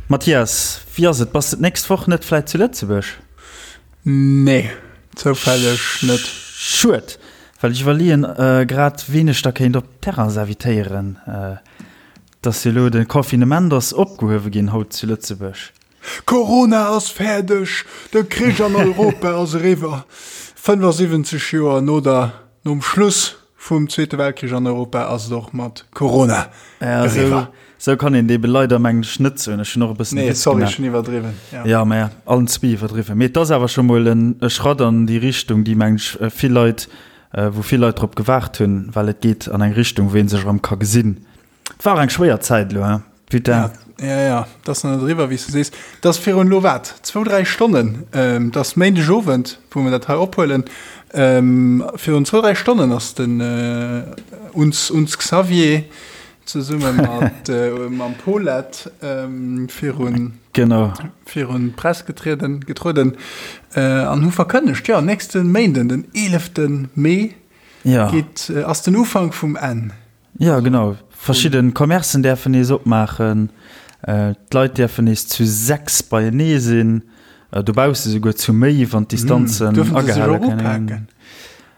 Mathias, wéi ass et, bass de d'nächst Woch net vläit zu Lëtzebuerg? Nee, zoufälleg net. Schued, well ech iwwerleeën grad ween ech da kéint op d'Terrass invitéieren. Et ass jo elo, de Confinement ass opgehuewe ginn haut zu Lëtzebuerg. Corona ass fäerdeg, de Krich an Europa ass eriwwer. 75 Joer no der, nom Schluss vum Zweete Weltkrich an Europa ass et och mat Corona eriwwer. Sou kann een et ebe leider, mengen ech, net soen. Ech hunn och e bëssen e Witz gemaach. Nee, sorry, ech hunn iwwerdriwwen. Ja, ja mä allen zwee iwwerdriwwen. Mee et ass awer scho mol en Schratt an déi Richtung, déi, mengen ech, vill Leit, wou vill Leit drop gewaart hunn, well et geet an eng Richtung, wou ee sech erëm ka gesinn. Et war och eng schwéier Zäit elo, hein, putain. Ja, ja, ja, et ass nach net eriwwer, wéi s du sees. Et ass virun elo wat, zwou, dräi Stonnen, et ass Méindegowend, wou mer dat hei ophuelen, virun zwou, dräi Stonnen ass den uns, uns Xavier zesumme mat mam Paulette virun, genau, virun d'Press getrieden, getrueden an hu verkënnegt, jo, nächste Méinden, den 11. Mee, ja. geet, ass den Ufank vum Enn. Jo, genau. Verschidde Commercen däerfen nees opmaachen, d'Leit däerfen nees zu 6 beienee sinn, dobausse souguer zu méi, wann d'Distanzen agehale kënne ginn.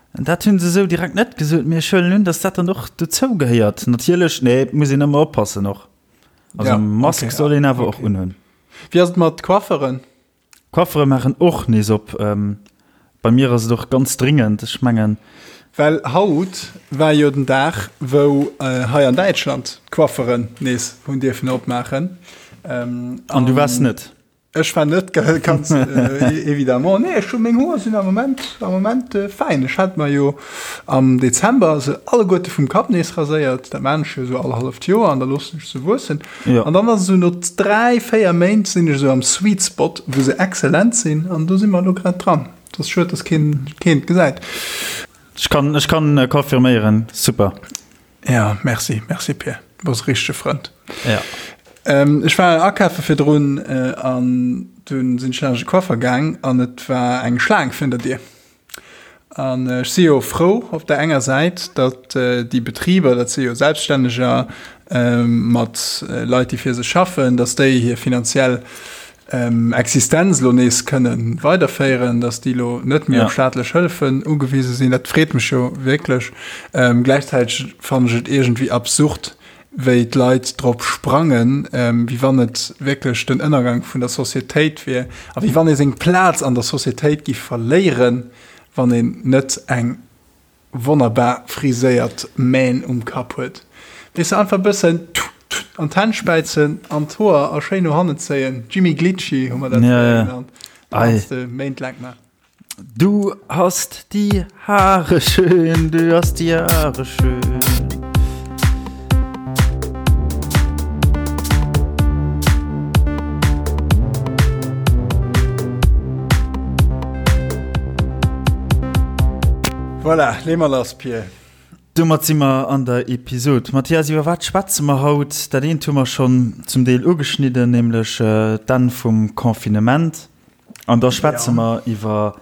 Dat hunn se esou direkt net gesot, mee ech huelen un, datt dat dann och dozou gehéiert. Natierlech, nee, et muss een ëmmer oppassen och. Also Mask soll een awer och unhunn. Wéi ass et mat Coifferen? Coiffere maachen och nees op. Bei mir ass et och ganz dringend, ech mengen. Well haut war jo den Dag, wou hei an Däitschland d'Coifferen nees hunn dierfen opmaachen. An du waars net? Ech war net, ganz évidemment. Nee, ech hu meng Hoer sinn am Moment, am Moment fäin. Ech hat mer jo am Dezember se alleguerte vum Kapp nees raséiert. Dat maan ech jo esou all halleft Joer an da loossen ech se wuessen. Ja. An dann ass esou no 3, 4 Méint sinn ech esou am Sweet Spot, wou se excellent sinn an do si mer elo grad dran. Et ass schued, dass keen keen et gesäit. Ech kann, ech kann confirméieren, super. Ja, merci, merci Pir, du bass e richtege Frënd. Ja. Ähm, ech war akafe virdrun äh, an dunn sinn ech laanscht e Coiffer gaang an et war eng Schlaang virun der Dier. An ech si jo frou op der enger Säit, datt déi Betriber, dat si jo Selbststänneger mat Leit, déi fir sech schaffen, datt déi hir finanziell Existenz elo nees kënne weiderféieren, datt déi elo net méi op staatlech Hëllefen ugewise sinn. Dat freet mech jo wierklech. Gläichzäiteg fannen ech et iergendwéi absurd, wéi d'Leit drop sprangen, wéi wann et wierklech den Ënnergang vun der Societéit wier a wéi wann ee seng Plaz an der Societéit giff verléieren, wann een net eng wonnerbar friséiert Mähn um Kapp huet. Weess de, einfach e bëssen an d'Hänn späizen an d'Hoer a schéin no hannen zéien, Jimmy Glitchy hu mer dat fréier genannt, dat kanns de méintlaang maachen. Du hast die Haare schön, du hast die Haare schön. Voilà, lee mer lass, Pir. Domat si mer an der Episod. Mathias, iwwer wat schwätze mer haut? Dat eent hu mer schonn zum Deel ugeschnidden, nämlech d'Enn vum Confinement. An da schwätze mer iwwer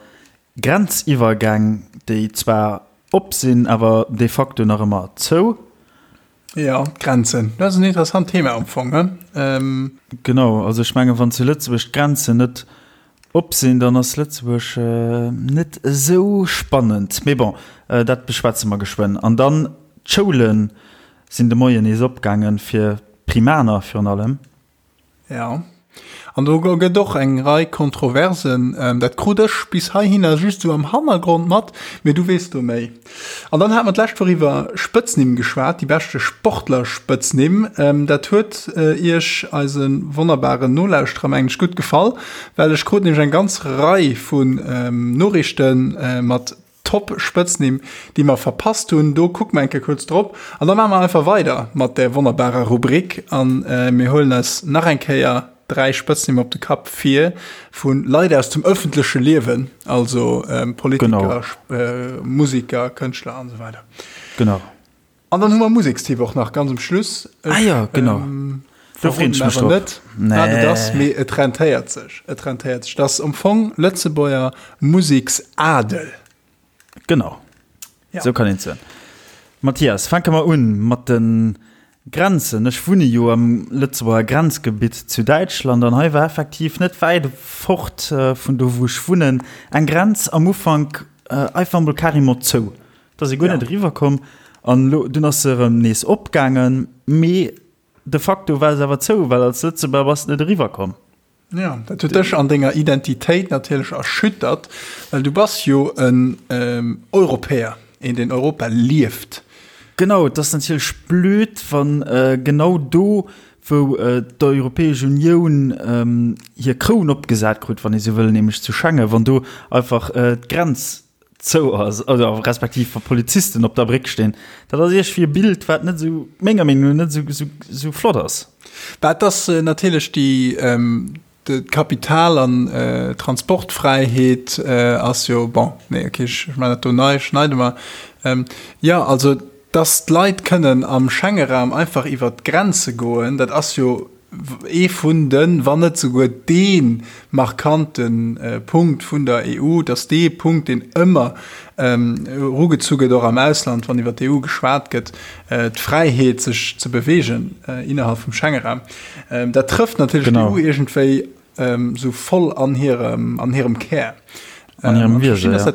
Grenziwwergäng, déi zwar op sinn, awer de facto nach ëmmer zou. Jo, d'Grenzen, dat ass en interessant Thema am Fong, ne? Genau, also ech mengen, wann zu Lëtzebuerg d'Grenzen net op sinn, dann ass Lëtzebuerg net esou spannend. Mee bon, dat beschwätze mer geschwënn. An dann, d'Schoule sinn de Moien nees opgaangen, fir d'Primaner virun allem. Ja. An do gëtt och eng Rei Kontroversen. Dat krut ech bis heihinner just esou am Hannergrond mat, mee du weess do méi. An dann hate mer d'lescht Woch iwwer Spëtznimm geschwat, déi beschte Sportler-Spëtznimm. Dat huet Iech, eise wonnerbaren Nolauschterer, mengen ech, gutt gefall, well ech krut nämlech eng ganz Rei vun Noriichte mat Top Spëtznimm, déi mer verpasst hunn. Do kucke mer eng Kéier kuerz drop an da maache mer einfach weider mat där wonnerbarer Rubrik an mir huelen eis nach eng Kéier 3 Spëtznimm op de Kapp vir vu Leit aus dem ëffentleche Liewen, also Politiker, Musiker, Kënschtler an esou weider. Genau. An dann hu mer Musekstipp och nach ganz um Schluss. Ah jo, genau. Do freen ech mech drop. Net, wat et ass, mee et rentéiert sech. Et rentéiert sech. Dat ass am Fong Lëtzebuerger Museksadel. Genau. Ja. Sou kann een et soen. Mathias, fänke mer un mat de. Grenzen. Ech wunne jo am Lëtzebuerger Grenzgebitt zu Däitschland an hei war effektiv net wäit fort vun do wou ech wunnen eng Grenz am Ufank einfach emol carrément zou. Da ass ee guer net eriwwer komm an elo dunn ass se erëm nees opgaangen, mee de facto war se awer zou, well als Lëtzebuerger bass de net eriwwer komm. Jo, dat huet dech an denger Identitéit natierlech erschüttert, well du bass jo en Europäer, een deen Europa lieft. Genau, et ass natierlech blöd, wann genau do, wou d'Europäesch Unioun hir Kroun opgesat krut, wann ee sou wëll, nämlech zu Schengen, wann do einfach d'Grenz zou ass, oder respektiv wa Polizisten op der Bréck stinn, dat ass iergwéi e Bild, wat net esou, menger Meenung no, net esou, esou, esou flott ass. Bah, et ass natierlech déi, d'Kapital an Transportfräiheet ass jo, bon, nee, okay, ech maachen dat do nei, schneide mer. Jo, also, dass d'Leit kënnen am Schengeraum einfach iwwert d'Grenze goen, dat ass jo ee vun den, wann net souguer dee markante Punkt vun der EU, et ass dee Punkt, deen ëmmer erugezu gëtt, och am Ausland, wann iwwer d'EU geschwat gëtt, d'Fräiheet, sech ze beweegen innerhalb vum Schengeraum. Dat trëfft natierlech d'EU iergendwéi Sou voll an hirem, an hirem Kär. An hirem Wiese, ja.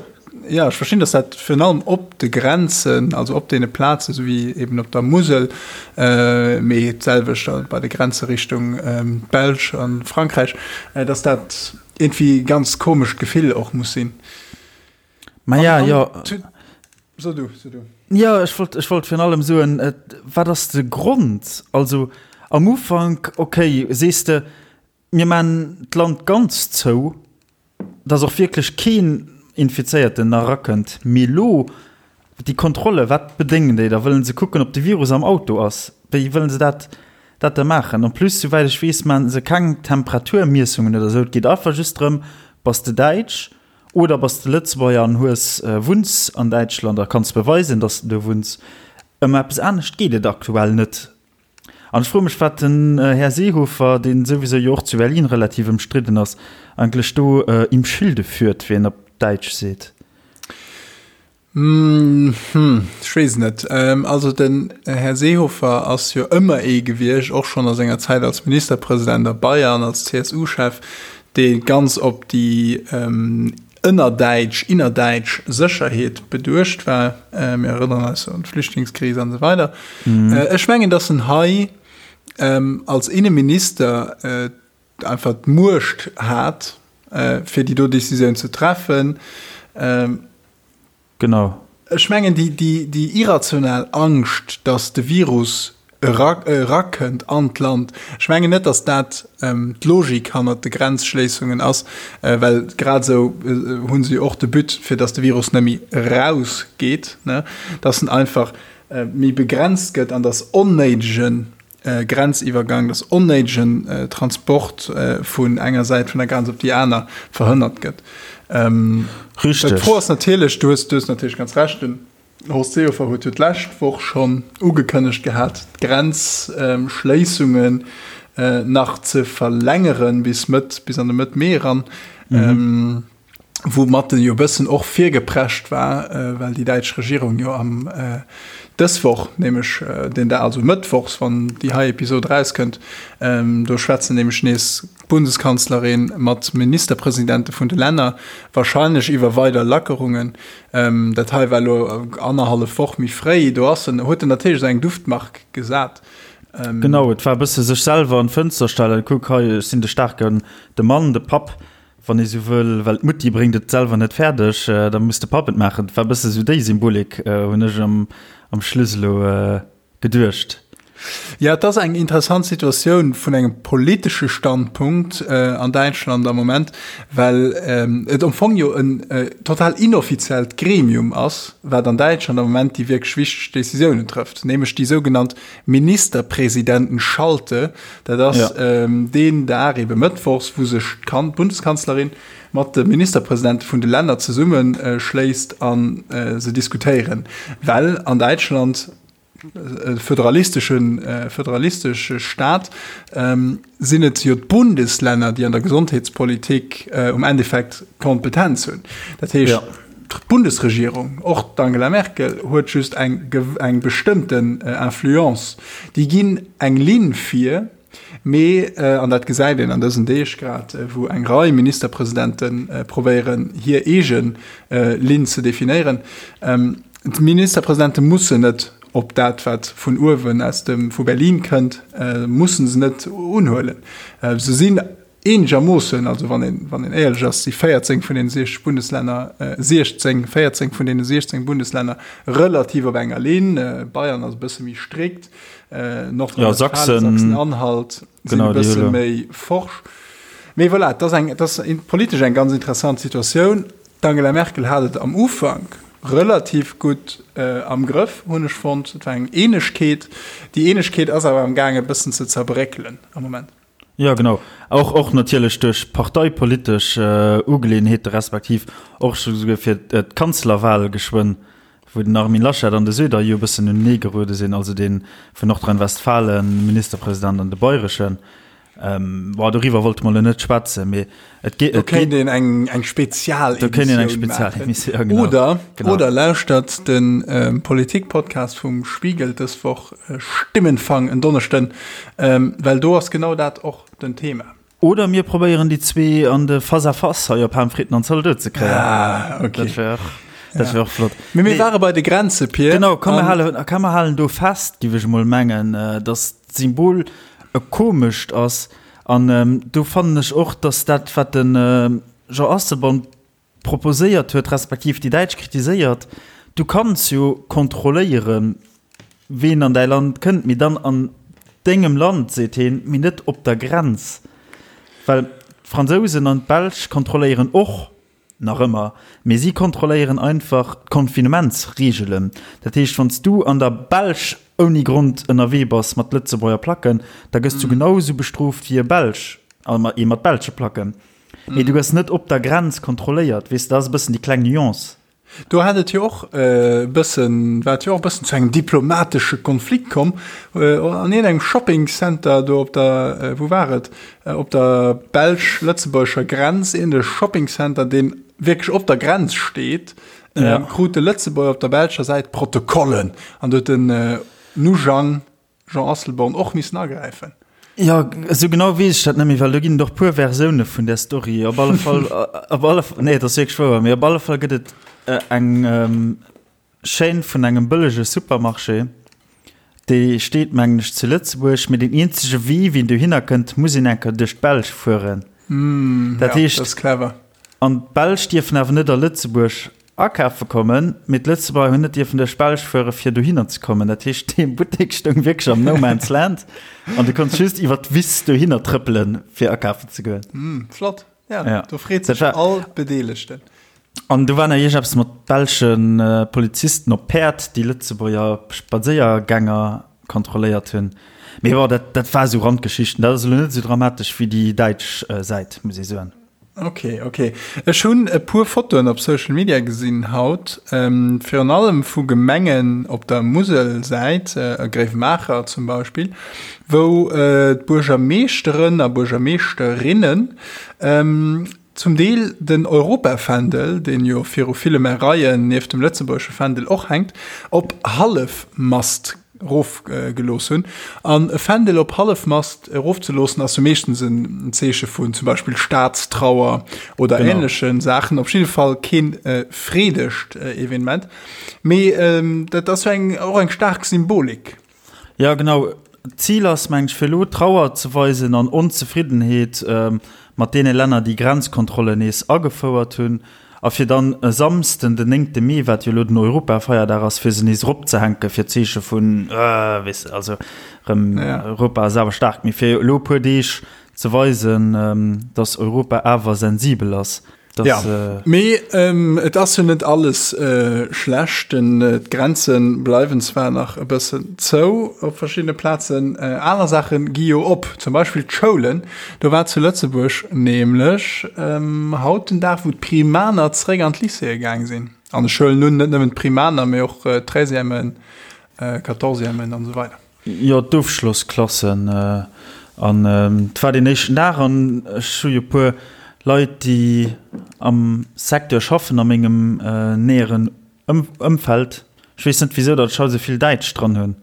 Ja, ech verstinn, dass dat virun allem op de Grenzen, also op deene Plazen, esou wéi eben op der Musel, mee d'selwecht bei de Grenze Richtung d'Belsch a Frankräich, dass dat iergendwéi e ganz komescht Gefill och muss sinn. Ma ja, jo. So du, so du. Jo, ech wollt, ech wollt virun allem soen, wat ass de Grond? Also am Ufank, okay, sees de, Mir maan d'Land ganz zou, dass och wierklech keen Infizéierten nach erakënnt. Mee lo, déi Kontrolle, wat bedéngen déi da? Wëllen se kucken, ob de Virus am Auto ass? Wéi wëllen se dat dat da maachen? En plus, souwäit ech weess, maan se keng Temperaturmiessungen oder esou. Et geet einfach just drëm, Bass de Däitsch oder bass de Lëtzebuerger an hues, wunns an Däitschland a kanns beweisen, dass de do wunns. Ëm eppes anescht geet et aktuell net. An ech froe mech, wat den Här Seehofer, dee souwisou jo och zu Berlin relativ ëmstridden ass, eigentlech do im Schilde führt, wéi een op Däitsch seet. Hm, ech weess et net. Also den Här Seehofer ass jo ëmmer ee gewiescht, och schonn a senger Zäit als Ministerpresident a Bayern, als CSU-Chef, dee ganz op déi ënnerdäitsch, innerdäitsch Sécherheet beduecht war. Mir erënneren eis un d'Flüchtlingskris an esou weider. Ech mengen, datt en hei als Inneminister einfach d'Muecht hat, fir déi do Décisioun ze treffen. Genau. Ech mengen, déi irrational Angscht, datt de Virus erakënnt an d'Land, ech mengen net, datt dat d'Logik hannert de Grenzschléissungen ass, well grad esou hu se jo och de But, fir datt de Virus net méi erausgeet, datt en einfach méi begrenzt gëtt an datt onnéidegen Grenziwwergang, dass onnéidegen Transport vun enger Säit vun der Grenz op déi aner verhënnert gëtt. Richteg. D'Fro ass natierlech, du hues, du hues natierlech ganz Recht, den Horst Seehofer huet jo d'lescht Woch schonn ugekënnegt gehat, d'Grenzschléissungen nach ze verlängeren bis Mëtt, bis an de Mëtt Mee eran. Woumat en jo e bëssen och virgeprescht war, well déi däitsch Regierung jo am dës Woch, nämlech den Dag, also mëttwochs, wann déi hei Episod erauskënnt, do schwätzen nämlech nees d'Bundeskanzlerin mat Ministerpresidente vun de Länner, wahrscheinlech iwwer weider Lackerungen. Dat hei war elo annerhallef Woch méi fréi, do ass en, huet en natierlech esou eng Duftmark gesat. Genau, et war e bësse sech selwer an d'Fënster stellen, Kuck hei, ech sinn de staarken, de Mann, de Papp. Wann ee sou wëll, well d'Mutti bréngt et selwer net fäerdeg, da muss de Papp et maachen. Et war e bësse sou déi Symbolik, hunn ech am Schluss elo geduecht. Jo, et ass eng interessant Situatioun vun engem politesche Standpunkt an Däitschland am Moment, well et am Fong jo en total inoffiziellt Gremium ass, wat an Däitschland am Moment déi wierklech wichteg Decisiounen trëfft, nämlech déi sougenannt Ministerpresidentenschalte, dat ass deen Dag, ebe mëttwochs, wou sech d'Bundeskanzlerin mat de Ministerpresidente vun de Länner zesummeschléisst a se diskutéieren, well an Däitschland, e föderalistesche föderalistesche Staat, sinn et jo d'Bundeslänner, déi an der Gesondheetspolitik um Endeffekt d'Kompetenz hunn. Dat heescht. D'Bundesregierung, och d'Angela Merkel, huet just eng eng bestëmmten Influence. Déi ginn eng Linn vir, mee, an dat gesäit een an dësen Deeg grad, wou eng Rei Ministerpresidente probéieren, hir eege Linn ze definéieren, d'Ministerpresidente mussen net op dat, wat vun uewen aus dem, vu Berlin kënnt, mussen se net unhuelen. Se sinn eenegermoossen, also wann een, wann een éierlech ass, si 14 vun deene 60 Bundeslänner, 16, 14 vun deene 16 Bundeslänner relativ op enger Linn. Bayern ass e bësse méi strikt, Nordrhein-Westfalen, Sachsen-Anhalt sinn e bësse méi forsch. Mee voilà, et ass eng, et ass politesch eng ganz interessant Situatioun. D'Angela Merkel hat et am Ufank relativ gutt am Grëff, hunn ech fonnt. Et war eng Eenegkeet. Déi Eenegkeet ass awer am gaang e bëssen ze zerbréckelen am Moment. Jo, genau. Och, och natierlech duerch parteipolitesch Ugeleeënheete respektiv och souguer fir d'Kanzlerwal geschwënn, wou den Armin Laschet an de Söder jo e bëssen unenee geruede sinn, also dee vun Nordrhein-Westfalen, Ministerpresident, an de bayreschen. Bon, doriwwer wollte mer elo net schwätzen, mee et geet. Do kéint een eng, eng Spezialemissioun maachen. Ja, genau. Oder, genau. Oder lauschtert de Politik-Podcast vum Spiegel dës Woch, Stimmenfang en Donneschden, well do ass genau dat och den Thema. Oder mir probéieren déi zwee an de Face à Face hei op Haamfritten an Zaldote ze kréien. Ah, okay. Dat wär och, dat wär och flott. Mee mir ware bei de Grenze, Pir. Genau, komm mir halen, komm mir halen do fest, giff ech emol mengen, dass d'Symbol e komescht ass. An do fannen ech och, dass dat, wat de Jean Asselborn proposéiert huet, respektiv déi Däitsch kritiséiert, du kanns jo kontrolléieren, ween an däi Land kënnt, mee dann an dengem Land, seet heen, mee net op der Grenz. Well d'Fransousen an d'Belsch kontrolléieren och nach ëmmer, mee si kontrolléieren einfach d'Confinementsreegelen. Dat heescht, wann s du an der Belsch ouni Grond ënnerwee bass mat Lëtzebuerger Placken, da gëss du genau esou bestrooft wéi e Belsch, ee mat belsche Placken. Mee du gëss net op der Grenz kontrolléiert, weess de, dat ass e bëssen déi kleng Nuance. Do hat et jo och e bëssen, war et jo och e bëssen zu engem diplomatesche Konflikt komm an iergendengem Shopping Center do op der, wou war et, op der belsch-lëtzebuergescher Grenz, iergende Shopping Center, deen wierklech op der Grenz steet, krut de Lëtzebuerger op der belscher Säit Protokollen an do huet den Nujang Jean Asselborn och missen agräifen. Jo, esou genau weess ech dat net méi, well do ginn et och puer Versioune vun där Story. Op alle Fall, op alle Fall, nee, et ass wierklech wouer, mee op alle Fall gëtt et eng Chaîne vun engem bëllege Supermarché, déi steet, mengen ech, zu Lëtzebuerg, mee deen eenzege Wee, wéi een dohinner kënnt, muss een eng Kéier duerch d'Belsch fueren. Dat heescht, dat ass clever. An d'Belsch dierfen awer net a Lëtzebuerg akafe kommen, mee d'Lëtzebuerger hunn net dierfen duerch d'Belsch fuere fir dohinner ze kommen. Dat heescht, dee Buttek stoung wierklech am No Man's Land an du konns just iwwer d'Wiss dohinner trëppelen, fir akafen ze goen. Mm, flott. Ja, ja. Do freet sech all Bedeelegten. An do war nach iergeppes mat belsche Polizisten op Päerd, déi Lëtzebuerger Spadséiergänger kontrolléiert hunn. Mee bon, dat, dat war esou Randgeschichten. Dat ass elo net esou dramatesch wéi déi däitsch Säit, muss ee soen. Ok, ok. Ech hunn e puer Fotoen op Social Media gesinn haut, virun allem vu Gemengen op der Muselsäit, Gréiwemaacher zum Beispill, wou d'Buergermeeschteren a Buergermeeschterinnen zum Deel den Europafändel, deen jo viru ville Maireien nieft dem lëtzebuergesche Fändel och hänkt, op Hallefmast erofgelooss hunn. An e Fändel op Hallefmast erofzeloossen ass jo meeschtens en Zeeche vun zum Beispill Staatstrauer oder genau. ähnleche Saachen. Op jidde Fall keen äh, freedegt äh, Evenement. Mee ähm, dat ass jo eng, och eng staark Symbolik. Ja genau. D'Zil ass meng ech fir elo Trauer ze weisen an Onzefriddenheet ähm, mat deene Länner, déi Grenzkontrollen nees agefouert hunn. A fir dann e Samsden, den néngte Mee, wat jo elo den Europafeierdag ass, fir se nees eropzehänken, fir d'Zeeche vun, weess de, also erëm Europa ass awer staark, mee fir elo e puer Deeg ze weisen, datt Europa awer sensibel ass. Jo, mee et ass jo net alles schlecht. D'Grenze bleiwen zwar nach e bëssen zou op verschiddene Plazen, aner Saache gi jo op, zum Beispill d'Schoulen. Do war zu Lëtzebuerg nämlech haut den Dag, wou d'Primaner zeréck an d'Lycéeë gaang sinn. An ech huelen un, net nëmmen d'Primaner, mee och d'Treizièmen, Quatorzièmen an esou weider. Jo, d'Ofschlossklassen. An et war deen éischten Dag an ech hu jo e puer. Leit, déi am Secteur schaffen a mengem näheren Ëmfeld. Ech weess net wisou datt ech haut esou vill Däitsch dran hunn.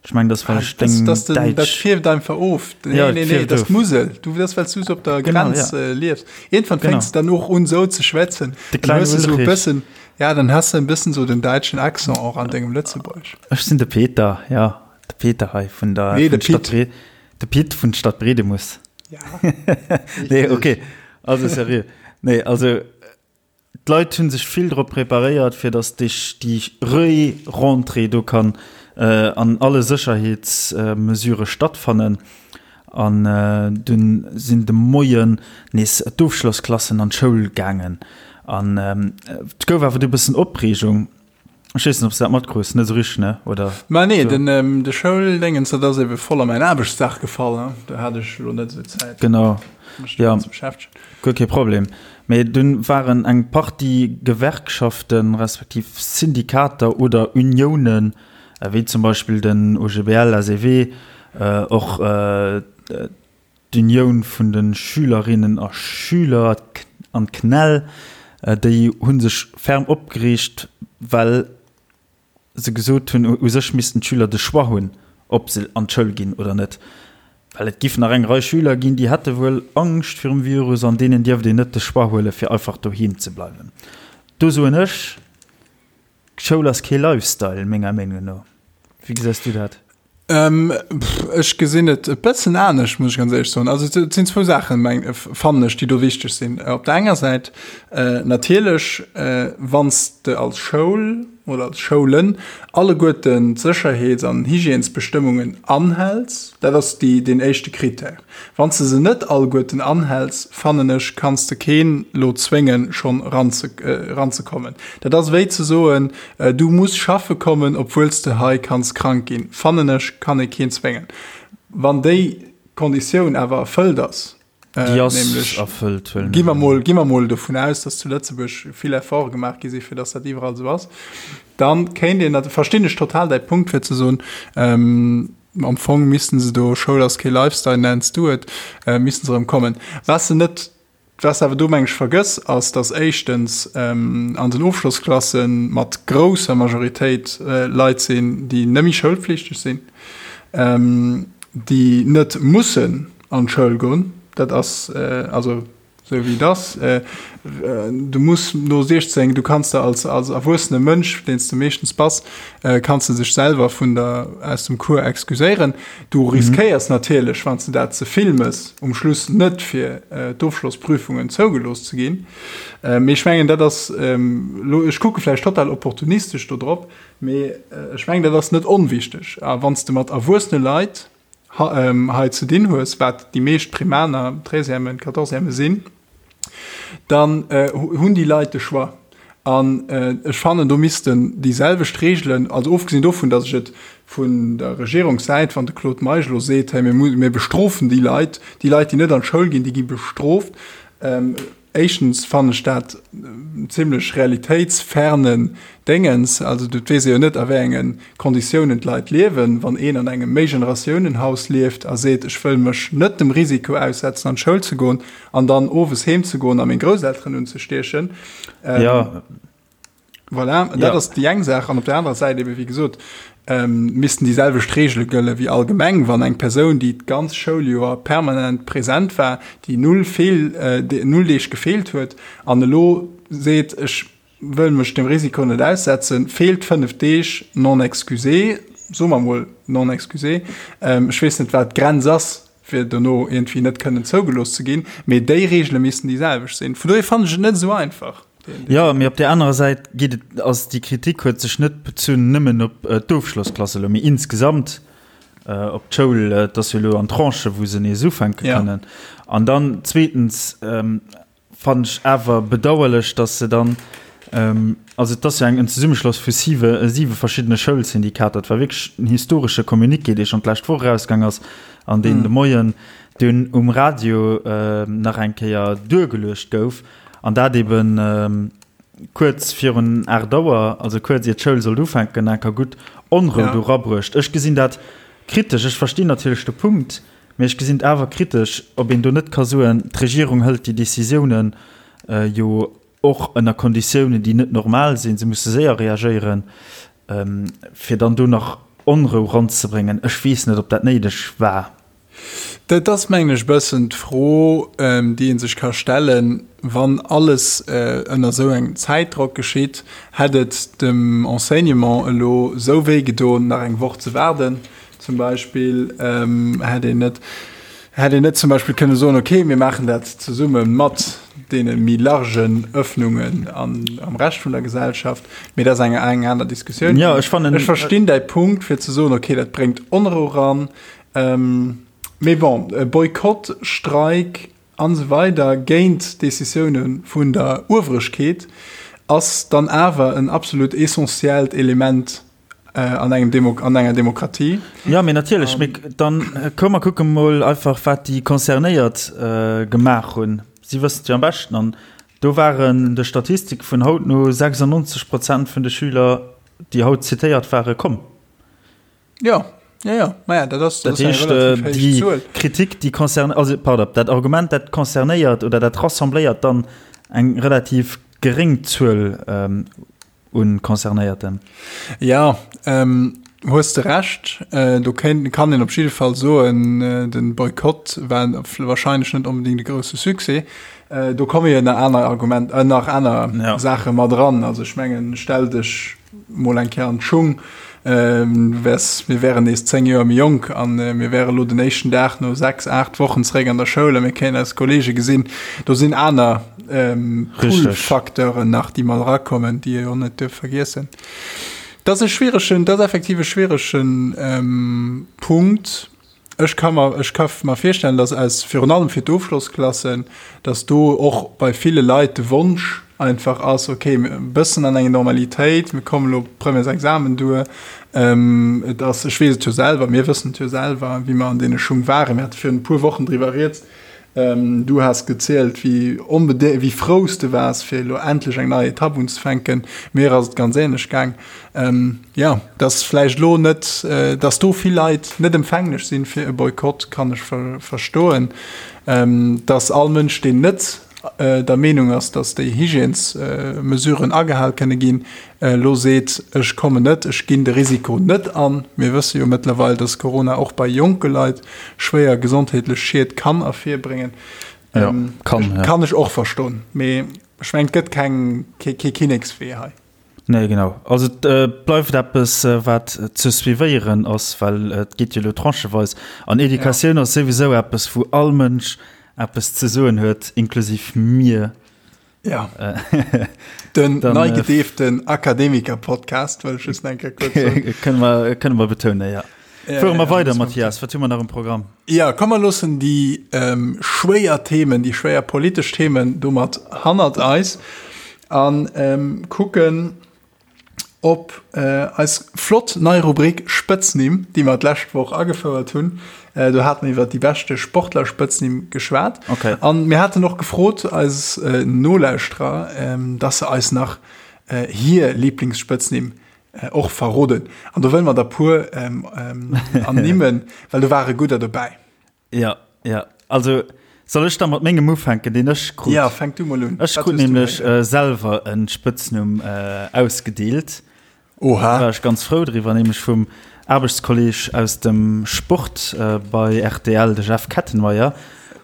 Ech mengen dat ass well ech deng Däitsch. Dat fierft einfach of. Nee, nee, nee, dat ass d'Musel. Du, dat ass well s du esou op der Grenz liefs. Iergendwann fänks de dann och un esou ze schwätzen. De kleinen Ulrich. Ja, dann has de e bëssen esou den däitschen Accent och an dengem Lëtzebuergesch. Ech sinn de Peter, jo, de Peter hei vun der Nee, de Pit. De Pit vun Stad Bredemus. Ja. Nee, okay. Also seriö. Nee, also d'Leit hunn sech vill drop preparéiert, fir datt déi déi Re-Rentrée do kann an alle Sécherheetsmesurë stattfannen. An dunn sinn de Moien nees d'Ofschlossklassen an d'Schoul gaangen. An et gouf awer du e bëssen Opreegung. Ech weess net, ob s de dat matkruss, net esou richteg, ne? Oder? Ma nee, den, ähm, de Schouldéngens, dat ass ebe voll a mäin Aarbechtsdag gefall, ne? Do hat ech elo net esou Zäit, Genau, mech ja, domat ze beschäftegen. guer kee Problem. Mee dunn waren eng Partie Gewerkschaften, respektiv Syndikater oder Uniounen, wéi zum Beispill den OGBL, SEW, och D'Unioun vun de Schülerinnen a Schüler an d'CNEL, déi hu sech ferm opgereegt, well se gesot hunn, u sech missten d'Schüler de Choix hunn, ob se an d'Schoul ginn oder net. Well et giff nach eng Rei Schüler ginn, déi hätte wuel Angscht virum Virus an deenen dierft een net de Choix huelen, fir einfach doheem ze bleiwen. Do soen ech, Schoul ass kee Lifestyle, menger Meenung no. Wéi gesäis du dat? Ech gesinn et e bëssen anescht, muss ech ganz éierlech soen. Also et sinn zwou Saachen, meng, fannen ech, déi do wichteg sinn. Op der enger Säit natierlech, wann s de als Schoul oder als Schoulen alleguerten d'Sécherheets an Hygiènesbestëmmungen anhäls, dat ass déi, deen éischte Critère. Wann s de se net alleguerten anhäls, fannen ech, kanns de keen lo zwéngen, schonn eranzekommen. Dat ass wéi ze soen, Du muss schaffe kommen, obwuel s de hei kanns krank ginn, fannen ech, kann ee keen zwéngen. Wann déi Konditioun awer erfëllt ass, Déi ass nämlech, erfëllt, huelen gi mer mol, gi mer mol dovun aus, datt zu Lëtzebuerg vill Efforte gemaach gi si fir datt dat iwwerall esou ass, dann kéint een, dat verstinn ech total däi Punkt, fir ze soen, am Fong missten se do, Schoul ass kee Lifestyle, nenns du et, missten se erëm kommen. Wat se net Wat s de awer do, meng ech, vergëss, ass, dass éischtens an den Ofschlossklasse mat grousser Majoritéit Leit sinn, déi net méi schoulpflichteg sinn, déi net mussen an d'Schoul goen. Dat ass also esou, wéi et ass. Du muss no 16, du kanns der als erwuessene Mënsch, deen s de meeschtens bass, kanns de sech selwer vun der, aus dem Cours excuséieren. Du riskéiers natierlech, wann s de dat ze vill mëss, um Schluss net fir d'Ofschlossprüfungen zougelooss ze ginn. Mee ech mengen, dat ass elo, ech kucke vläicht total opportunistesch do drop, mee ech mengen, dat ass net onwichteg. A wann s de mat erwuessene Leit hei ze dinn hues, wat déi meescht Primaner, Treizièmen, Quatorzièmen sinn, dann hunn déi Leit de Choix. An ech fannen, do missten déi selwecht Regeln, also ofgesinn dovun, datt ech et vun der Regierungssäit, wann de Claude Meisch elo seet, hey, mir bestrofen déi Leit, déi Leit, déi net an d'Schoul ginn, déi gi bestrooft, Éischtens fannen ech dat en zimlech realitéitsfernen Déngens. Also et weess ee jo net a wéi enge Konditiounen d'Leit liewen. Wann een an engem Méigeneratiounen-Haus lieft a seet, ech wëll mech net dem Risiko aussetzen an d'Schoul ze goen an dann owes heem ze goen a meng Grousselteren unzestiechen, Voilà, dat ass déi eng Saach. An op der anerer Säit ebe wéi gesot, missten déi selwecht Reegele gëlle wéi allgemeng. Wann eng Persoun, déi d'ganz Schouljoer permanent present war, déi null Feel, null Deeg gefeelt huet an elo seet, ech wëll mech dem Risiko net aussetzen, feelt 5 Deeg non excusé, soe mer mol non excusé, ech weess net, wat d'Grenz ass, fir dono iergendwéi net kënnen zougelooss ze ginn, mee déi Reegele missten déi selwecht sinn. Vun dohier fannen ech et net esou einfach. Jo, mee op där anerer Säit geet et, ass déi Kritik huet sech net bezunn nëmmen op d'Ofschlossklasse elo, mee insgesamt op d'Schoul. Et ass jo elo an Tranchen, wou se nees ufänke kënnen. An dann zweetens fannen ech awer bedauerlech, dass se dann, also et ass jo eng en Zesummeschloss vu siwe siwe verschiddene Schoulsyndikater, et war wierklech en historesche Communiqué, dee schonn d'lescht Woch erausgaang ass an deen de Moien dunn um Radio nach eng Kéier duergeluecht gouf, an dat eeben kuerz virun 8 Auer, also kuerz ier d'Schoul sollt ufänken, enker gutt Onrou do erabruecht. Ech gesinn dat kritesch, ech verstinn natierlech de Punkt. Mee ech gesinn et awer kritesch, ob een do net ka soen, d'Regierung hëlt déi Décisiounen jo och ënner Konditiounen, déi net normal sinn, se musse séier reagéieren, fir dann do nach Onrou ranzebréngen. Ech weess net, ob dat néideg war. Dat ass, mengen ech, e bëssen d'Fro, déi ee sech ka stellen, Wann alles ënner esou engem Zäitdrock geschitt, hätt et dem Enseignement elo esou wéi gedoen, nach eng Woch ze waarden zum Beispill? Hätt een net, hätt een net zum Beispill kënne soen, okay, mir maachen dat zesumme mat deene méi largen Öffnungen an, am Rescht vun der Gesellschaft? Mee dat ass eng, eng aner Diskussioun. Jo, ech fannen. Ech verstinn däi Punkt, fir ze soen, okay, dat bréngt Onrou ran. Mee bon, Boykott, Streik an esou weider géint Decisioune vun der Ueweregkeet ass dann awer en absolut essentiellt Element an engem Demo an enger Demokratie. Jo, mee natierlech. Mee dann komm mer kucke mol einfach, wat déi Concernéiert gemaach hunn. Si wëssen et jo am beschten. An do waren de Statistike vun haut no 96 Prozent vun de Schüler, déi haut zitéiert waren, komm. Ja, ja, ja. Maja, dat ass, dat ass eng relativ héich Zuel. Kritik, déi concerne, also pardon, dat Argument, dat concernéiert oder dat rassembléiert dann eng relativ geréng Zuel ähm, un Concernéierten. Ja, ähm, hues de Recht. Äh, do kéint, kann een op jidde Fall soen, äh, den Boykott war wahrscheinlech net onbedingt e grousse Succès. Äh, do komme jo nach aner Argument, äh, nach aner ja. Saache mat dran. Also ech mengen, stell dech mol eng Kéier an d'Schung, du wäers, mir wären nees 10 Joer méi jonk an mir wäre lo den éischten Dag no 6, 8 Wochen zeréck an der Schoul a mir kéinten eis Kollege gesinn. Do sinn aner Pull-Facteuren nach, déi mat erakommen, déi ee jo net duerf vergiessen. Dat ass e schwieregen, dat ass effektiv e schwieregen Punkt. Ech ka mer, ech ka mer virstellen, dass aus, virun allem fir d'Ofschlossklassen, dass do och bei ville Leit de Wonsch einfach ass, okay, e bëssen an eng Normalitéit, mir kommen elo Premièresexamen duer. Et ass, ech weess et jo selwer, mir wëssen et jo selwer, wéi mer an deene Schung waren. Mir hate virun e puer Wochen driwwer rieds. Du has gezielt, wéi onbedé, wéi frou s de waars, fir elo endlech eng nei Etapp unzefänken. Mir ass et ganz änlech gaang. Jo, dass vläicht elo net, dass do vill Leit net empfänglech sinn fir e Boykott, kann ech verstoen. Dass all Mënsch, deen net der Meenung ass, dass déi Hygiènesmesuren agehal kënne ginn, elo seet, ech kommen net, ech ginn de Risiko net an. Mir wësse jo mëttlerweil, dass Corona och bei jonke Leit schwéier gesondheetlech Schied kann ervirbréngen. Ja, kann, ja. Kann ech och verstoen. Mee ech mengen, et gëtt keng, kee Kinnekswee hei. Nee, genau. Also et bleift eppes, wat ze suivéieren ass, well et geet jo elo trancheweis. An Educatioun ass souwisou eppes, wou all Mënsch eppes ze soen huet, inklusiv mir. Ja. Den nei gedeeften Akademiker-Podcast, wëll ech just eng Kéier kuerz soen. Kënne mer, kënne mer betounen, ja. Ja, Fuere mer weider, Mathias, wat hu mer nach um Programm? Ja, komm mer loossen déi ähm, schwéier Themen, déi schwéier politesch Themen domat hannert eis an ähm, kucken op äh, eis flott nei Rubrik Spëtznimm, déi mer d'lescht Woch agefouert hunn. Äh, do hate mer iwwer déi beschte Sportler-Spëtznimm geschwat. Okay. An mir haten och gefrot eis äh, Nolauschterer, ähm, dass se eis nach äh, hir Lieblingsspëtznimm Och verroden. An do wëlle mer der puer ernimmen, well do ware gudder dobäi. Ja, ja. Also soll ech da mat mengem ufänken, deen ech krut? Ja, fänk du mol un. Ech krut nämlech selwer e Spëtznumm ausgedeelt. Oha. Da war ech ganz frou driwwer, nämlech vum Aarbechtskolleg aus dem Sport bei rtl, de Jeff Kettenmeyer.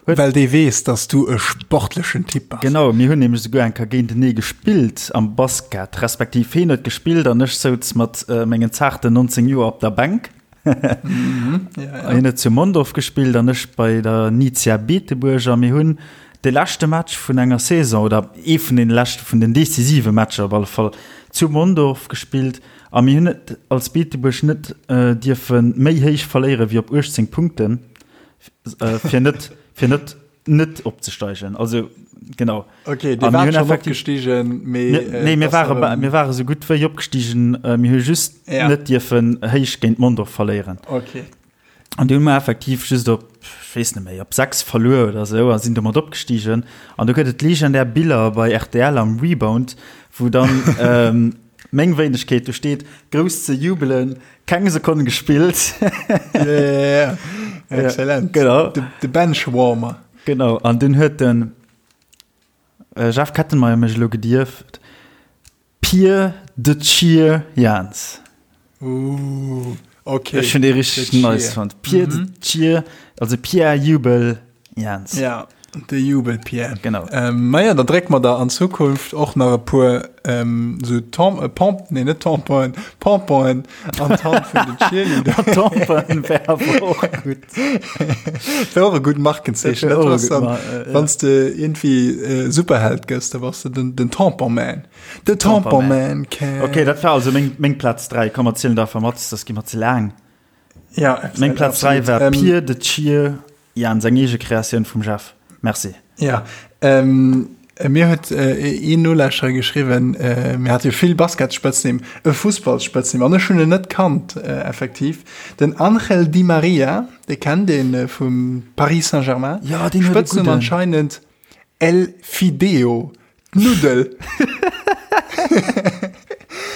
Huet. Well dee weess, dass du e sportlechen Typ bass. Genau, mir hunn nämlech esouguer eng Kéier géintenee gespillt am Basket, respektiv hien huet gespillt an ech souz mat mengen zaarten 19 Joer op der Bänk. Mhm, ja, ja. Hien huet zu Mondorf gespillt an ech bei der Nizia Beetebuerg a mir hunn de leschte Match vun enger Saison oder ee vun den leschte vun den decisive Matcher op alle Fall zu Mondorf gespillt a mir hunn et als Beetebuerg net dierfe méi héich verléiere wéi op 18 Punkten. Äh, fir net fir net net opzesteigen also genau okay dir wart schon opgestiegen mee äh, nee mir ware mir ware sou gutt wéi opgestiegen äh, mir hu just ja. net dierfen héich géint Mondorf verléieren okay an du hu mer effektiv just op ech weess net méi op 6 verluer oder sou a sinn domat opgestiegen an do gëtt et legendär Biller bei RTL am Rebound wou dann ähm, meng Wéinegkeet do steet grouss ze jubelen Keng Sekonn gespillt. Ja, ja, ja. Excellent. Genau. De, de Benchwarmer. Genau, an dunn huet den Jeff Kettenmeyer mech elo gedierft Pier de Cheer Jans. Ooh, okay. Ech hunn dee richteg nice fonnt. Pier de Cheer, also Pierre Jubel Jans. Ja, de Jubel Pierre. Genau. Ähm, naja, da drécke mer der an Zukunft och nach e puer ähm, sou Tam äh, Pamp, nee, net Tamponen, Pomponen an d'Hand vun den Cheerleader. Tamponen wär awer och gutt. Wär och e gutt Markenzeechen. Dat wär och e Dat gutt dann, Mar äh, ja. Wann s de irgendwie äh, Superheld gëss, da bass de den, den Tampon Man. De Tampon Man can. Okay, dat war also meng, meng Plaz 3. Komm, erzielen der einfach mat, das gi mer ze laang. Ja, Meng Plaz 3 war ähm, Pier de Cheer Jans, eng eege Kreatioun vum Jeff. Merci. Ja, ähm, mir huet äh, een Nolauschterer geschriwwen, äh, mir hat jo vill Basketspëtznimm, e Fussballspëtznimm, an ech hunn en net kannt, äh, effektiv. Den Angel Di Maria, dee kennt een äh, vum Paris Saint-Germain. Ja, deen huet e Spëtznumm gudden. anscheinend El Fideo. D'Nuddel.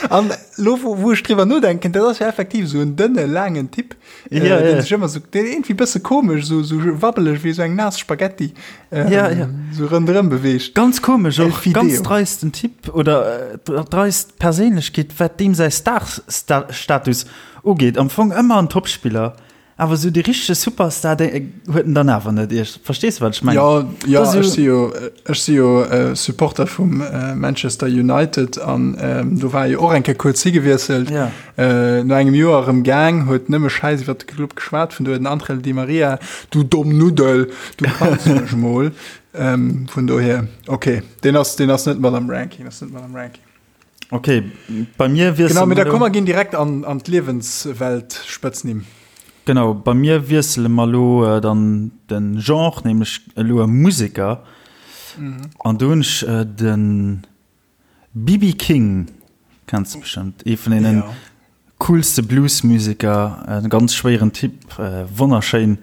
An lo wou, wou ech driwwer nodenken, dat ass jo effektiv esou en dënne, laangen Typ, äh, Ja, deen ja. sech ëmmer sou, deen iergendwéi bësse komesch, sou, sou wabbeleg wéi sou eng naass Spaghetti, ähm, Ja, ja. sou ronderëm beweegt. Ganz komesch El och, Fideo. ganz dreisten Typ oder äh, dreist Perséinlechkeet, wat deem säi Star-Status ugeet. Am Fong ëmmer en Topspiller. Awer esou dee richtege Superstar dee huet en dann awer net. Iech verstees de wat ech mengen? Jo, jo, Dat ass ech jo si jo, ech si jo Supporter vum Manchester United an do war e jo och eng Kéier kuerz higewiesselt. Ja. No engem Joer erëm gaang, huet nëmme Schäiss iwwer de Club geschwat, vun do huet den Angel Di Maria, du domm Nuddel, du kanns mech mol. Vun dohier, ok, deen ass, deen ass net mat am Ranking, ass net mat am Ranking. Ok, bei mir wiessele Genau, mee mer da elo. komm mer ginn direkt an, an d'Liewenswelt-Spëtznimm. Genau, bei mir wiessele mer elo dann de Genre, nämlech elo e Museker. An do hunn ech de BB King, kenns de bestëmmt, ee vun deene Ja. coolste Bluesmuseker, e ganz schwéieren Typ, wonnerschéin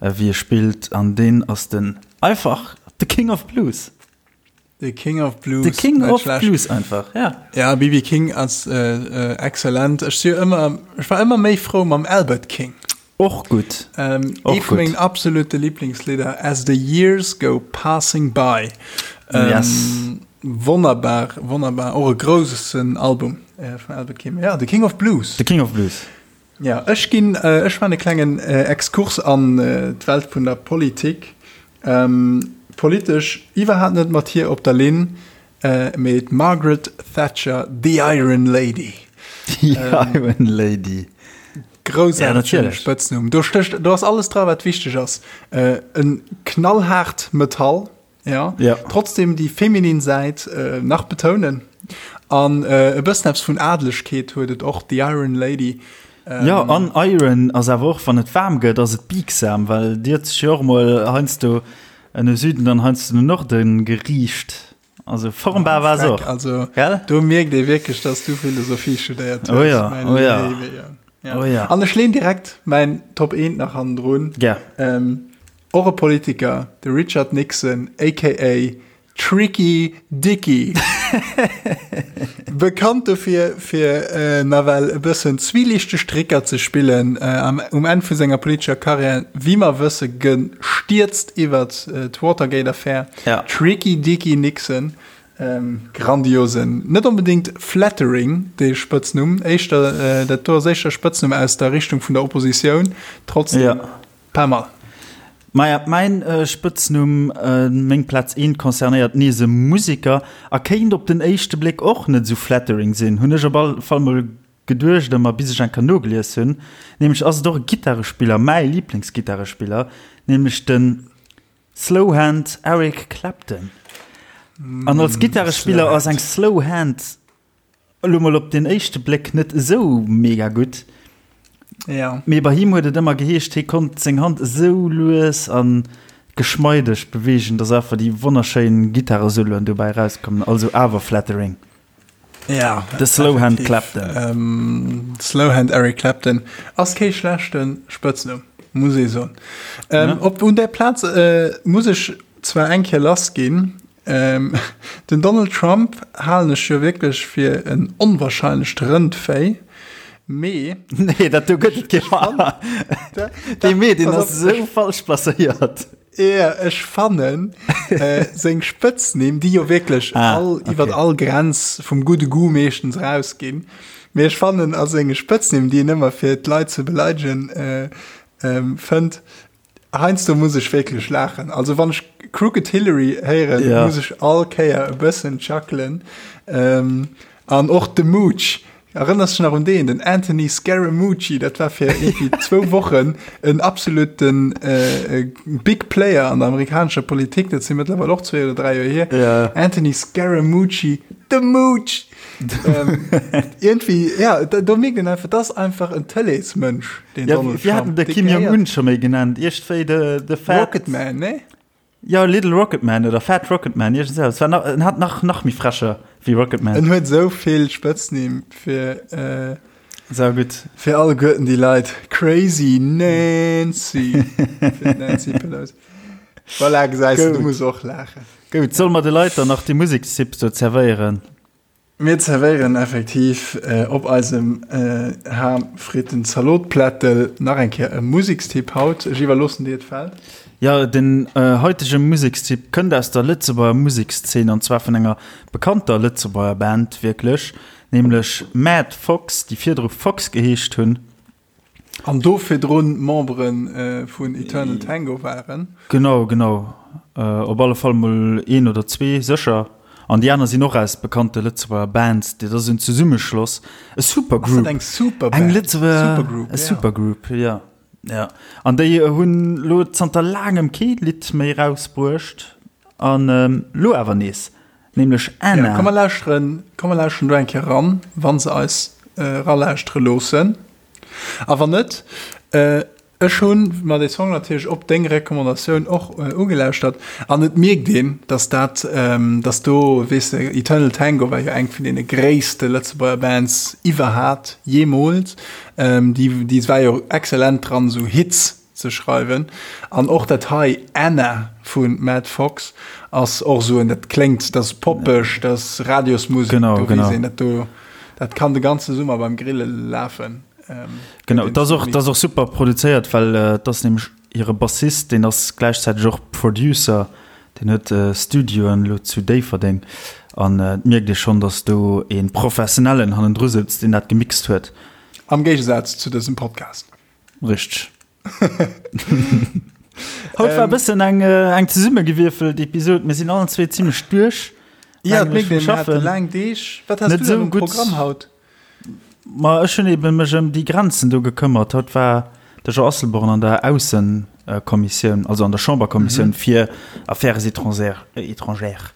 wéi e spillt an deen ass den einfach de King of Blues. The King of Blues. The King net of schlecht. Blues einfach, ja. Ja, BB King ass äh, äh, exzellent. Ech si ëmmer, ech war ëmmer méi frou mam Albert King. Och gutt. Ähm, Och ee vu gutt. mengen absolute Lieblingslidder, As the Years Go Passing By. Ähm, Yes. Wonnerbar, wonnerbar. Och e groussen Album äh, vum Albert King. Ja, The King of Blues. The King of Blues. Ja, ech ginn, ech maachen e klengen Exkurs an d'Welt vun der Politik. Politesch iwwerhaapt net mat hir op der Linn, mee d'Margaret Thatcher, the Iron Lady. The Iron Lady. Groussaartegen Spëtznumm. Do stécht, do ass alles dra wat wichteg ass. En knallhaart Metall. Ja. Ja. Trotzdem déi feminin Säit äh, nach betounen. An äh, e bëssen eppes vun Adelegkeet huet et och, The Iron Lady. Ähm, ja, an Iron ass awer och, wann et waarm gëtt, ass et biegsam, well Dir huet sech jo och mol heiansdo no Süden an heiansdo no Norden geriicht. Also formbar war se och. Also, Gell? do mierkt ee wierklech, dass du Philosophie studéiert hues. Oh ja, mein oh ja. Léiwe, ja. Ja. Oh ja. An ech leen direkt mäin Top 1 nach hannendrun. Gär. Ähm, Och e Politiker, de Richard Nixon aka Tricky Dicky. Bekannt dofir, fir nawell e bëssen zwielichteg Tricker ze spillen, um Enn vu senger politescher Karriär, wéi mer wësse gestierzt iwwert d'Watergate-Affär. Tricky Dicky Nixon, grandiosen, net onbedéngt flattering, dee Spëtznumm, éischter, dat do ass éischter Spëtznumm aus der Richtung vun der Oppositioun, trotzdem. Pas mal. Maja, mäin Spëtznumm, meng Plaz eent concernéiert nees e Museker a kéint op den éischte Bléck och net esou flattering sinn, hunn ech op all Fall mol geduecht ëmmer, bis ech eng Kéier nogelies hunn. Nämlech ass et och e Gittarespiller, mäi Liblingsgittarespiller, nämlech de Slowhand Eric Clapton. An als Gittarespiller ass eng Slow Hand Elo mol op den éischte Bléck net esou mega gutt. Ja. Mee bei him huet et ëmmer geheescht, hie konnt seng Hand esou lues a geschmeideg beweegen, dass einfach déi wonnerschéin Gittaresoloen dobäi erauskommen. Also awer flattering. Ja. De Slowhand Clapton. Ähm, Slowhand Eric Clapton ass kee schlechte Spëtznumm, muss ee soen. Ähm, ja. Op un där Plaz äh, muss ech zwar eng Kéier lass ginn, Den Donald Trump halen ech jo wierklech fir en onwahrscheinlecht Rëndvéi. Mee. Nee, dat do gëtt et kee Dee Mee, deen ass esou falsch placéiert. Ja, ech fannen äh, seng Spëtznimm, déi jo wierklech ah, all, okay. iwwer all Grenz vum gudde Goût meeschtens rausginn. Mee ech fannen a senge Spëtznimm, déi en ëmmer fir d'Leit ze beleidegen äh, ähm, fënnt, Heiansdo muss ech wierklech laachen. Also wann ech Crooked Hillary héieren, ja. muss ech all Kéier e bëssen chuckelen. Ähm, an och de Mooch. Erënners du nach un deen, den Anthony Scaramucci, dat war fir irgendwie zwou Wochen en absoluten äh, äh, Big Player an der amerikanescher Politik, dat si mëttlerweil och zwee oder dräi Joer hier. Ja. Anthony Scaramucci, de Mooch! ähm, irgendwie, ja, da, do mierkt een einfach, dat ass einfach en Tëleesmënsch. Den ja, Donald Trump. hatten de Kim Jong-un scho méi genannt. Iergendwéi de, de Fat... Rocket Man, ne? Ja, Little Rocket Man oder Fat Rocket Man. Irgend so. Es war nach, en hat nach, nach méi frecher wéi Rocket Man. En huet sou vill Spëtznimm fir, äh, Sau gutt. Fir alleguerten déi Leit. Crazy Nancy. Fir d'Nancy Pelosi. Voilà, gesäis du, du muss och laachen. Gutt, solle mer de Leit dann nach déi Musekstipps do zerwéieren? Mir zerwéieren effektiv op eisem Ham-Fritten-Zalot-Plättel nach eng Kéier e Musekstipp haut. Ech iwwerloossen dir d'Feld. Jo, den haitege Musekstipp kënnt aus der Lëtzebuerger Musekszeen an zwar vun enger bekannter Lëtzebuerger Band wierklech, nämlech Mad Fox, déi virdru Fox geheescht hunn. An do virdrun Membere vun Eternal Tango waren. Genau, genau. Op alle Fall mol een oder zwee sécher. An déi aner sinn och aus bekannte Lëtzebuerger Bands. Dat ass en Zesummeschloss, e Supergroup. Ass dat eng Superband? Eng Lëtzebuerger Supergroup, ja. E Supergroup, ja. Ja. An déi hunn lo zanter laangem kee Lidd méi erausbruecht. An lo awer nees. Nämlech Anna. Ja, komm mer lauschteren, komm mer lauschteren do eng Kéier eran, wa se eis eralauschtere loossen. A wann net, ech hu mer dee Song natierlech op deng Recommandatioun och ugelauschtert an et mierkt een, dass dat, dass do, weess de, Eternal Tango war jo eng vun deene gréisste Lëtzebuerger Bands iwwerhat, jeemools. Déi, déi war jo excellent dran, esou Hits ze schreiwen. An och dat hei, Anna vu Matt Fox, ass och esou en, dat kléngt, dat ass poppeg, dat ass Radiosmusek, genau, do genau. weess een, dat do, dat kann de ganze Summer beim Grille lafen. Ähm, genau, dat ass och, dat ass och super produzéiert, well äh, dat ass nämlech hire Bassist, deen ass gläichzäiteg och Producer, deen huet äh, Studioen elo zu Déifferdeng. An äh, et mierkt ee schonn, datt do ee Professionellen hannendru souz, deen dat gemixt huet. Am Géigesaz zu dësem Podcast. Richteg. Haut war e bëssen eng, äh, eng zesummegewierfelt Episod. Mir sinn allen zwee zimmlech duerch. Ja, et mierkt een, mir hate laang Deeg. Wat has Net du denn esou um gutt. Programm haut? Ma ech hunn eben mech ëm déi Grenzen do gekëmmert. Haut war de Jean Asselborn an der Aussekommissioun, also an der Chamberkommissioun fir Affaires étrangères. Étrangères.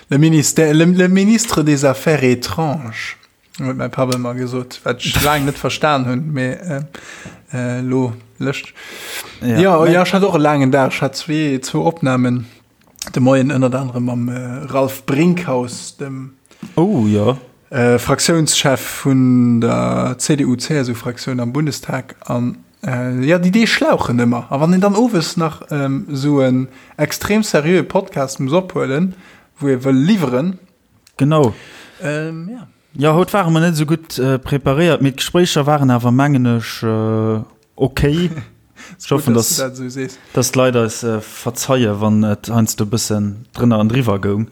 Le ministère, le, le ministre des Affaires étranges. Huet mäi Papp ëmmer gesot, wat ech laang net verstan hunn, mee elo lëscht. Ja, ja, ja, ech hat och e laangen Dag. Ech hat zwee, zwou Opnamen de Moien, ënnert anerem mam Ralph Brinkhaus, dem oh, ja. äh, Fraktiounschef vun der CDU-CSU-Fraktioun am Bundestag. An äh, ja, déi Deeg schlauchen ëmmer. A wann een dann owes nach ähm, esou en extrem seriöe Podcast muss ophuelen, wou ee wëll liwweren, Genau. Ähm, ja. Ja, haut ware mer net esou gutt äh, preparéiert, mee d'Gespréicher waren awer, mengen ech, äh, okay. Ech hoffen, dass, dass, du dat dass d'Leit eis äh, verzeie, wann et heiansdo e bëssen drënner an driwwer goung.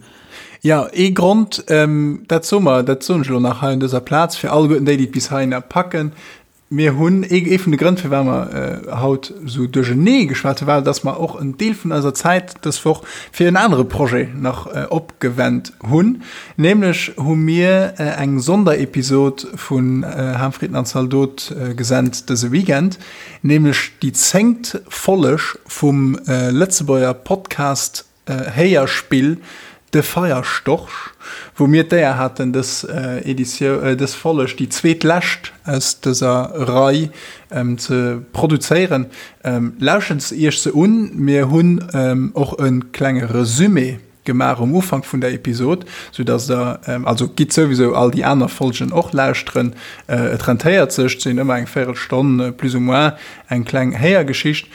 Ja, ee Grond, ähm, dat soe mer, dat soen ech elo nach hei un dëser Plaz, fir alleguerten déi, déi et bis heihinner packen, Mir hunn, ee vun de Grënn, firwat mer haut esou duerchenee geschwat hunn, war, dass mer och en Deel vun eiser Zäit dës Woch fir en anere Projet nach opgewennt hunn. Nämlech hu mir eng Sonderepisod vun Ham, Fritten an Zaldot gesent dëse Weekend, nämlech déi zéngt Folleg vum Lëtzebuerger Podcast Héierspill De Feierstorch, wou mir d'Éier haten dës Editioun, dës Folleg, déi zweetlescht aus dëser Rei, ze produzéieren. Lauschtert iech se un, mir hunn och e klenge Resumé gemaach um Ufank vun der Episod, sou dass der, also gitt souwisou all déi aner Folgen och lauschteren, et rentéiert sech, et sinn ëmmer eng Véirelstonn plus ou moins eng kleng Héiergeschicht.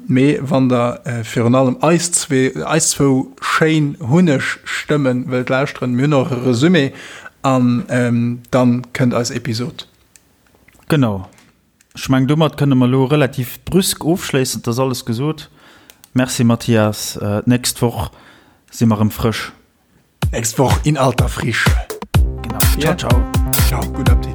Mee wann der virun allem eis zwee, eis zwou schéin Hunneg-Stëmmen wëllt lauschteren, mir hunn och e Resumé an dann kënnt eis Episod. Genau. Ech mengen, domat kënne mer elo relativ brüsk ofschléissen. Et ass alles gesot. Merci Mathias. D'nächst Woch si mer erëm frësch. Nächst Woch in alter Frische. Genau. Ciao, ciao. Ciao, guten Appetit.